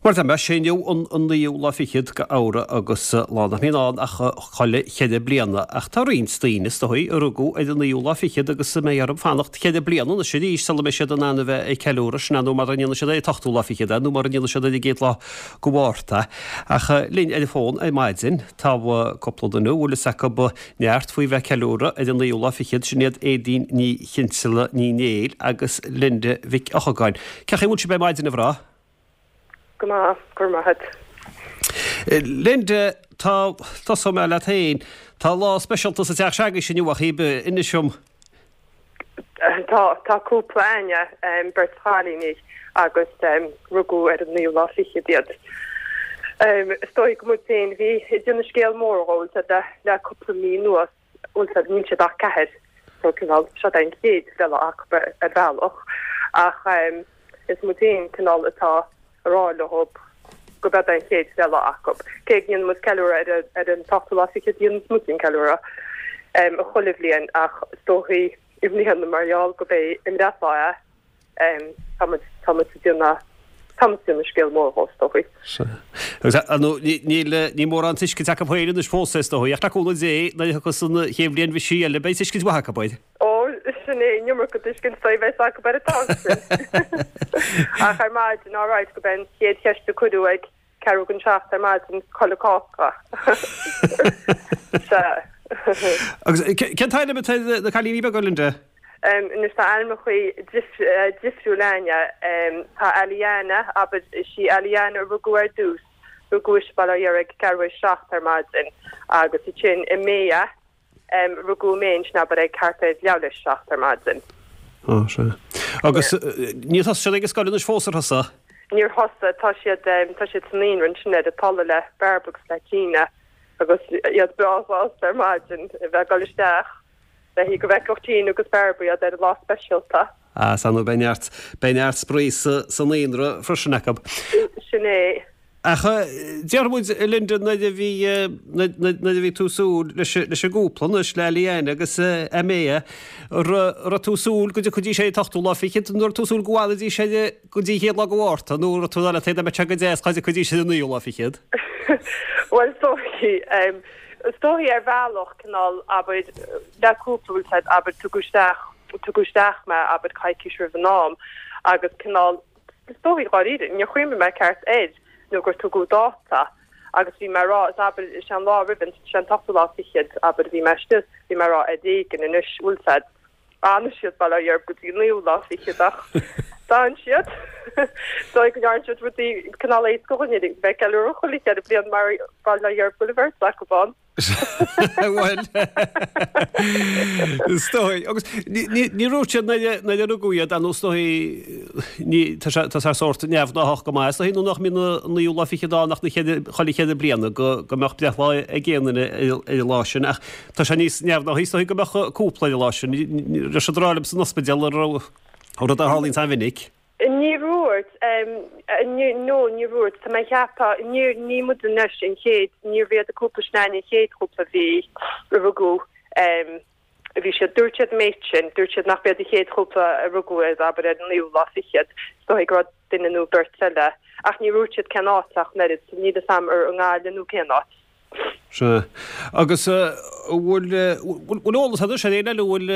Mar tá, sé inniu an naoú lá fichead de Fheabhra agus lá nach mbíonn ann ach chuile cheithre bliana. Ach tá roinnt daoine, is dóigh, a rugadh ar an naoú lá fichead agus a mbeidh orthu fanacht cheithre bliana anois arís sula mbeidh siad in ann a bheith ag ceiliúradh, sin é nó mara ndéanfaidh siad ar an t-ochtú lá fichead é nó mara ndéanfaidh siad ar an gcéad lá de Mhárta. Ach linn ar an bhfón ar maidin tá cúpla duine a bhfuil fhios acu neart faoi bheith ag ceiliúradh ar an naoú lá fichead, sin iad Aedín Ní Chinnsealaigh Ní Néill agus Linda Mhic Eochagáin. Cén chaoi a bhfuil sibh ar maidin, a mhná? Go maith, go raibh maith agat. Linda, tá, tosóidh mé leat féin, tá lá speisialta sa teach se'agaibhse inniu ach ibe, inis dom. Tá, tá cúpla a'inne, beirt chailíní agus rugadh ar an naoú lá fichead iad. Is dóigh gur muid féin a bhí ag déanamh scéal mór dhó le cúpla mí anuas. Bhuel níl siad ach ceathair so cineál seo é an chéad bhreithlá acu ar bhealach ach is muid féin cineál atá a rá leo gurb é an chéad bhreithlá acu. Cé go ndéanann muid ceiliúradh ar ar an t-ochtú lá fichead dhéanann muid an ceiliúradh chuile bhliain ach is dóichí i mbliana mar gheall gurb é a mbreithlá é Tá muid, tá muid ag déanamh, tá muid ag déanamh scéal mór dhó, is dóichí. Sea. Agus, ar ndóigh, ní, níl, níl mórán tuiscint acu féin anois fós, is dóichí, ach le cúnamh Dé, nuair a thiocfas an chéad bhliain bhisigh eile, beidh tuiscint mhaith acu air. Ó, sin é, an iomarca tuiscint a bheas acu ar an t-am sin. Ach ar maidin, alright, gurb é an chéad cheist a cuireadh ag Ceathrú don seacht ar maidin, cá bhfuil an cáca. Sea. Agus cén t-ainm atá ar na cailíní beaga, Linda? Anois tá ainmneachaí difriúil a'inne. Tá Aliana, abair, is í Aliana a rugadh ar dtús, rugadh ise bail ó Dhia uirthi ag ceathrú théis seacht ar maidin agus ansin Amaya, Rugadh Amaya ansin abair ag thart ar leathuair théis 7 ar maidin. Á, sea. Agus níor thosaigh siad ag an scoil anois fós, ar thosaigh? Níor thosaigh. Tá siad, tá siad sa naíonra ansin ar an tollamh le Bairbre agus le Tina agus iad breá sásta ar maidin a bheith ag dul isteach le go bhfeicfeadh Tina agus Bairbre iad ar an lá speisialta. Á, sea, nó beidh neart, beidh neart spraoi sa, sa naíonra freisin acu. Sin é. Ach déarfaidh muid, a Linda, nuair a bhí, nuair a bhí tú ag súil leis, leis an gcúpla anois, le Aliana agus Amaya, raibh tú ag súil go dtiocfaidís ar an t-ochtú lá fichead, nó raibh tú ag súil go bhfanfaidís ar, go dtí an chéad lá de Mhárta, nó raibh tú ag rá leat féin dá mbeadh sé go deas dá dtiocfaidís ar an naoú lá fichead? Bhuel, is dóichí, is dóichí ar bhealach, cineál, abair, le cúpla, bhfuil 's a'd, abair, tugadh isteach, tugadh isteach mé, abair, coicís roimh an am, agus cineál, Is dóichí, dháiríre, níor chuimhnigh mé ceart air nó gur tugadh dáta agus bhí mé a rá, is abair, is é an lá roimh an, is é an t-ochtú lá fichead, abair, a bhí mé istigh, bhí mé a rá ar éigean anois, bhfuil 's a'd, fhanfaidh siad bail ó Dhia orthu go dtí an naoú lá fichead ach d'fhan siad. Is dóigh go ndearna siad rudaí cineál éasca dhúinn a bheith ag ceiliúradh chuile cheithre bliana mar bail ó Dhia orthu go bhfuil an bheirt acu ann. Bhuel, is dóigh. Agus ní raibh siad nuair a rugadh iad, nó is dóigh, tá sé tá sé sórt neamhghnáthach go maith, is dóigh, nó nach mbíonn an naoú lá fichead ann ach na cheithre, chuile cheithre bliana go go mbeadh breithlá ag aon duine ar an lá sin. Ach tá sé níos neamhghnáthaí, is dóigh, go mbeadh cúpla ar an lá sin. Raibh siad ag rá libh san ospidéal an raibh rud a tharlaíonn an-mhinic. Níor dhúirt, no, níor dhúirt. Tá mé ag ceapadh, níor, ní muid anois an chéad, níorbh iad an cúpla sin an chéad chúpla a bhí, a rugadh, a bhí siad, dúirt siad an méid sin, dúirt siad nach b'iad an chéad chúpla a rugadh ar, abair, ar an naoú lá fichead, is dóigh go raibh duine nó beirt eile, ach níor dhúirt siad cén áit ach an oiread, so níl fhios a'm ar i nGaillimh nó cén áit. Sea. Agus an bhfuil, bhfuil eolas agat ar éinne eile a bhfuil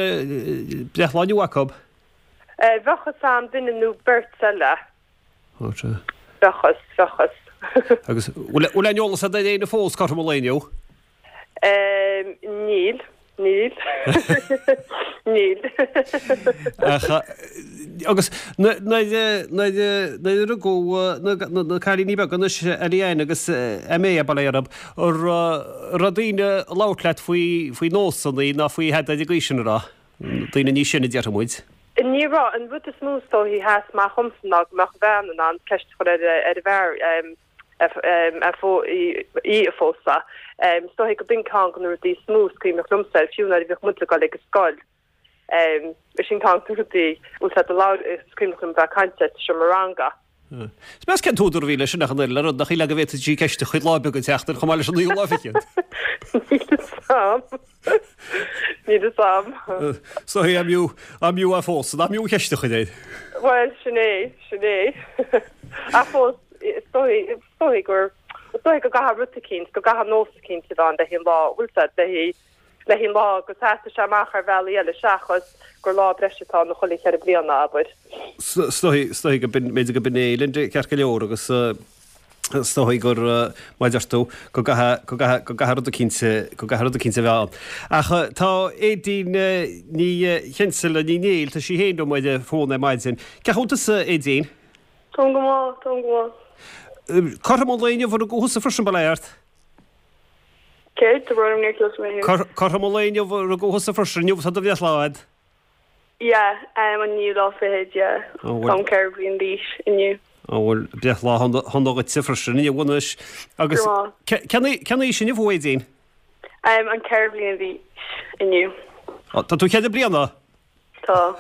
breithlá inniu acu? Bheadh fhios a'm duine nó beirt eile. Ó sea. Bheadh fhios, bheadh fhios. Agus bhfuil bhfuil aon eolas agat ar éinne fós cothrom an lae inniu? Níl, níl. Níl. Ach agus nuair nuair nuair a rugadh na na cailíní beaga anois, Eliane agus Aimée, bail ó Dhia orthu, an raibh daoine ag labhairt leat faoi faoi nósanna ná faoi thada ag an gcaoi sin an raibh? Daoine níos sine, déarfaidh muid. Ní raibh. An rud is mó is dóichí a sheas amach dhomsa ná go mbeadh an bhean in ann ceist a chur ar an bhfear í a phósadh. Is dóichí go b'in ceann de na rudaí is mó is cuimhneach liomsa air, fiú nuair a bhíodh muid ag dul ag an scoil. Sin ceann de na rudaí, bhfuil 's a'd, a labhair, is cuimhneach liom a bheith ag caint air sa seomra ranga. Is meas cén t-údar a bhí leis sin ach an oiread le rud nach shílfeá go bhféadfadh sí ceist a chur lá beag an tseachtain chomh maith leis an naoú lá fichead. Níl fhios a'm. Níl fhios a'm. So an mb'fhiú, an mb'fhiú é a phósadh, nach mb'fhiú an cheist a chur air. Bhuel, sin é, sin é. Ach fós. is dóigh, is dóigh gur, is dóigh go gcaithfidh rud eicínt, go gcaithfidh nós eicínt a bheith ann le haghaidh an lá, bhfuil 's a'd, le haghaidh, le haghaidh an lá go seasfaidh sé amach ar bhealaí eile seachas gur lá breise atá ann chuile cheithre bliana, abair. Is dóigh, is dóigh go b'in, b'fhéidir go b'in é, Linda, ceart go leor agus is dóigh gur, mar a deir tú, go gcaithfidh, go gcaithfidh, go gcaithfidh rud eicínt, go gcaithfidh rud eicínt a bheith ann. Ach tá Aedín Ní Chinseala, Ní Néill, tá sí féin liom ar an bhfón ar maidin. Cén chaoi a bhfuil tusa, Aedín? Táim go maith, táim go maith. Cothrom an lae inniu a rugadh thusa freisin, bail ó Dhia ort? Céard? Tá brón orm níor chlos mé thú. Cothrom an lae inniu a rugadh thusa freisin, inniu atá do bhreithlá a'd. Yeah, um, an naoú lá fichead, yeah. Ó, bhfuil. Táim 4 bhliain d'aois inniu. Ó, bhuel, breithlá shona dhuitse freisin inniu anois. Agus Grma. cén aois inniu thú, Aedín? Um, an 4 bhliain d'aois inniu. Ó, tá tú cheithre bliana? Tá.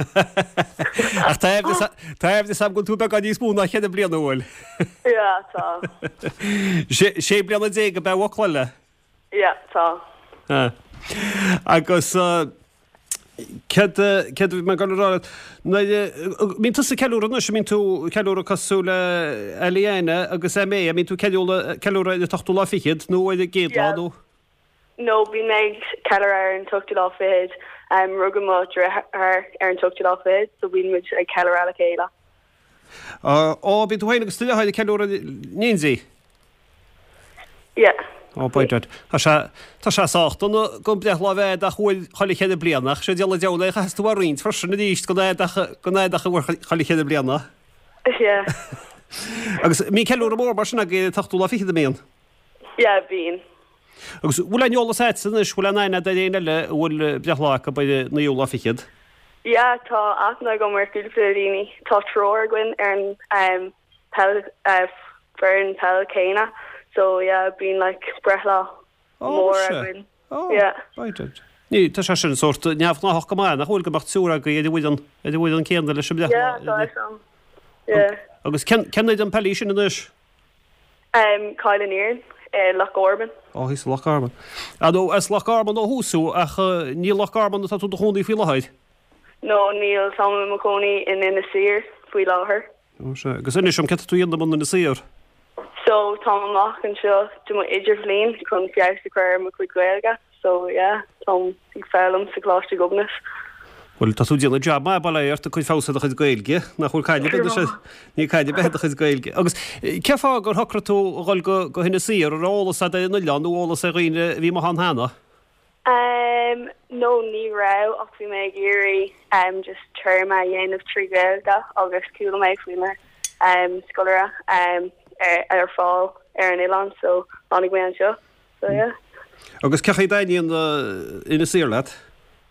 Ach tá aimhleas agam go bhfuil tú beagán níos mó ná cheithre bliana, an bhfuil? Yeah, tá. Sé bliana déag ab ea a bhuacaill? Yeah, tá. Agus céard céard a bhí mé ag dul a rá leat? Nuair a mbíonn tusa ag ceiliúradh anois, an mbíonn tú ag ceiliúradh cosúil le Eliana agus Aimée, an mbíonn tú ag ceiliúradh ar an t-ochtú lá fichead nó ar an gcéad lá nó? No, bíonn mé ag ceiliúradh ar an t-ochtú lá fichead. Rugadh mo dheartháir ar an t-ochtú lá fichead, so bíonn muid ag ceiliúradh le chéile. Ó, bíonn tú féin agus do dheartháir ag ceiliúradh in éindí? Yeah. Ó, by dad. Tá sé, tá sé sách dona gan breithlá a bheith a'd ach uair chuile cheithre bliana, ach sé diabhal an diabhal é, chaithfeas tú a roinnt freisin arís gan a'd ach, gan a'd ach uair chuile cheithre bliana. Yeah. Agus mbíonn ceiliúradh mór mar sin agaibh ar an t-ochtú lá fichead, an mbíonn? Yeah, bíonn. Agus bhfuil aon eolas a'dsa anois, bhfuil aon aithne a'd ar éinne eile a bhfuil breithlá acu ar an naoú lá fichead? Yeah, tá aithne agam ar chúpla daoine. Tá triúr againn ar an peil, foireann peil céanna so yeah, bíonn like breithlá mór againn. Oh, yeah. Right. Ní, tá sé sin sórt neamhghnáthach go maith, nach bhfuil go mbeadh triúr agaibh ar an bhfoireann, ar an bhfoireann céanna leis an mbreithlá. Yeah, tá fhios a'm. Yeah. Agus cén, cén fhoireann peile í sin anois? Cill an Iarainn i Loch Garman. Ó, thíos i Loch Garman. Ah, nó as Loch Garman ó thús thú, ach ní i Loch Garman atá tú i do chónaí faoi láthair? No, níl, táim i mo chónaí in Inis Oírr faoi láthair. Ó, sea. Agus inis dom, céard tá tú a dhéanamh in Inis Oírr? So, táim amach anseo do mo idirbhliain chun feabhas a chur ar mo chuid Gaeilge. So yeah, táim ag foghlaim sa Choláiste Ghobnait. Bhuel, tá tú ag déanamh jab maith, bail ó Dhia ort, ag cur feabhas ar do chuid Gaeilge, nach bhfuil caid ar bith anois, níl caid ar bith ar do chuid Gaeilge. Agus cén fáth gur shocraigh tú a dhul go, go hInis Oírr, an raibh eolas agat ar an oileán nó eolas ar dhaoine a bhí amuigh ann cheana? Ehm, no, ní raibh ach bhí mé ag iarraidh ehm just téarma a dhéanamh trí Ghaeilge agus chuala mé faoi na ehm scoláire ehm ar, ar fáil ar an oileán so tháinig mé anseo. So yeah. Agus cén chaoi a dtaitníonn Inis Oírr leat?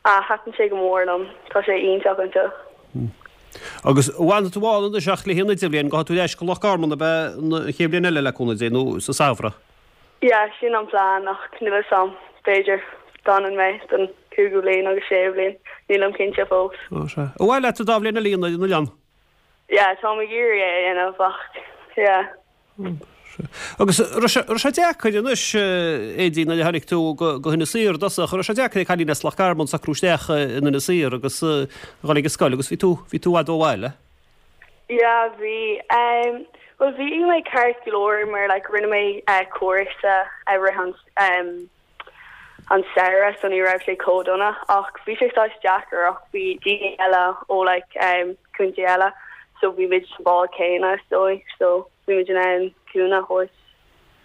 Ah, thaitin sé go mór liom. Tá sé iontach anseo. Agus an bhfanfaidh tú ann anois ach le haghaidh an idirbhliain, gabhfaidh tú ar ais go Loch Garman ab ea an chéad bhliain eile le cúnamh Dé, nó sa samhradh? Yeah, sin an plean ach níl fhios a'm, b'fhéidir d'fhanann mé don cúigiú bliain agus séú bliain, nílim cinnte fós. Ó sea. Ar mhaith leat an dá bhliain eile a dhéanamh ar an oileán? Yeah, táim ag iarraidh é a dhéanamh ach yeah. Agus raibh sé, raibh sé deacair anois, Aedín, nuair a tháinig tú go, go hInis Oírr i dtosach, raibh sé deacair ag cailín as Loch Garman socrú isteach in Inis Oírr agus a dhul ag an scoil agus bhí tú, bhí tú i bhfad ó bhaile? Yeah, bhí. Um, bhuel bhí mé ceart go leor mar like rinne mé uh, cúrsa i rith an um, an samhradh so ní raibh sé chomh dona ach bhí sé saghas deacair ach bhí daoine eile ó like um contae eile so bhí muid sa bád céanna is dóigh so bhí muid in ann cúnamh a thabhairt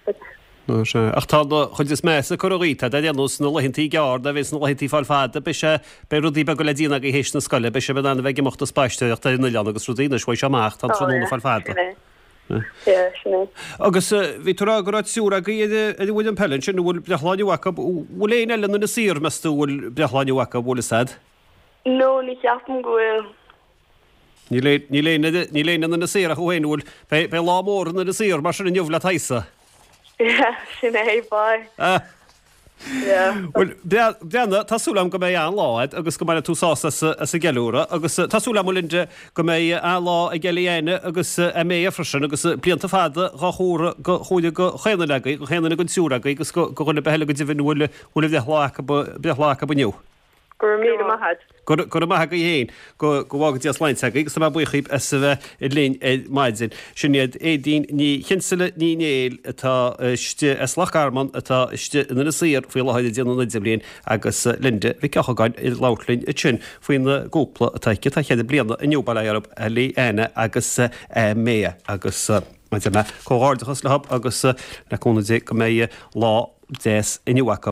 like. Ó sea. Ach tá an chuid is measa curtha dhíot, tá ar aon nós na laethantaí gearr, nuair a bheas na laethantaí ag fáil fada, beidh sé, beidh rudaí beaga le déanamh agaibh théis na scoile, beidh sibh in ann a bheith ag imeacht ag spaisteoireacht ar an oileán agus rudaí anois, bheidh sé amach, tá an tráthnóna ag fáil fada. Sin é. Yeah, sin é. Agus bhí tú ag rá go raibh triúr agaibh ar an bhfoireann peile ansin, an bhfuil breithlá inniu acu, bhfuil éinne eile in Inis Oírr, meas tú, an bhfuil breithlá inniu acu, an bhfuil fhios a'd? No, ní cheapaim go bhfuil. Níl níl éinne, níl éinne in Inis Oírr ach thú féin, an bhfuil, beidh, beidh lá mór in Inis Oírr mar sin inniu le t'aghaidhsa. Yeah, sin é, beidh. Bhuel, breathnaigh, tá súil agam go mbeidh an-lá agat agus go mbainfidh tú sásamh as an gceiliúradh agus tá súil agam, a Linda, go mbeidh an-lá ag Eliana agus Aimée freisin agus blianta fada dhá chomóradh go chomhaireamh go chaon duine agaibh, go chaon duine den triúr agaibh agus go dhuine ar bith eile go deimhin a bhfuil a bhreithlá acu, breithlá acu inniu. Go raibh míle maith agat. Go raibh maith agaibh féin. Go bhfága Dia sláinte agaibh agus tá mé buíoch díbh as a bheith linn ar maidin. Sin iad Aedín Ní Chinnsealaigh Ní Néill atá istigh as Loch Garman atá istigh in Inis Oírr faoi láthair ag déanamh an idirbhliain agus Linda Mhic Eochagáin ag labhairt linn ansin faoina gcúpla atá aici atá cheithre bliana inniu, bail ó Dhia orthu, Ellie-Anna agus Maya agus mar a deir mé, comhghairdeachas leo agus le cúnamh Dé go mbeidh lá deas inniu acu.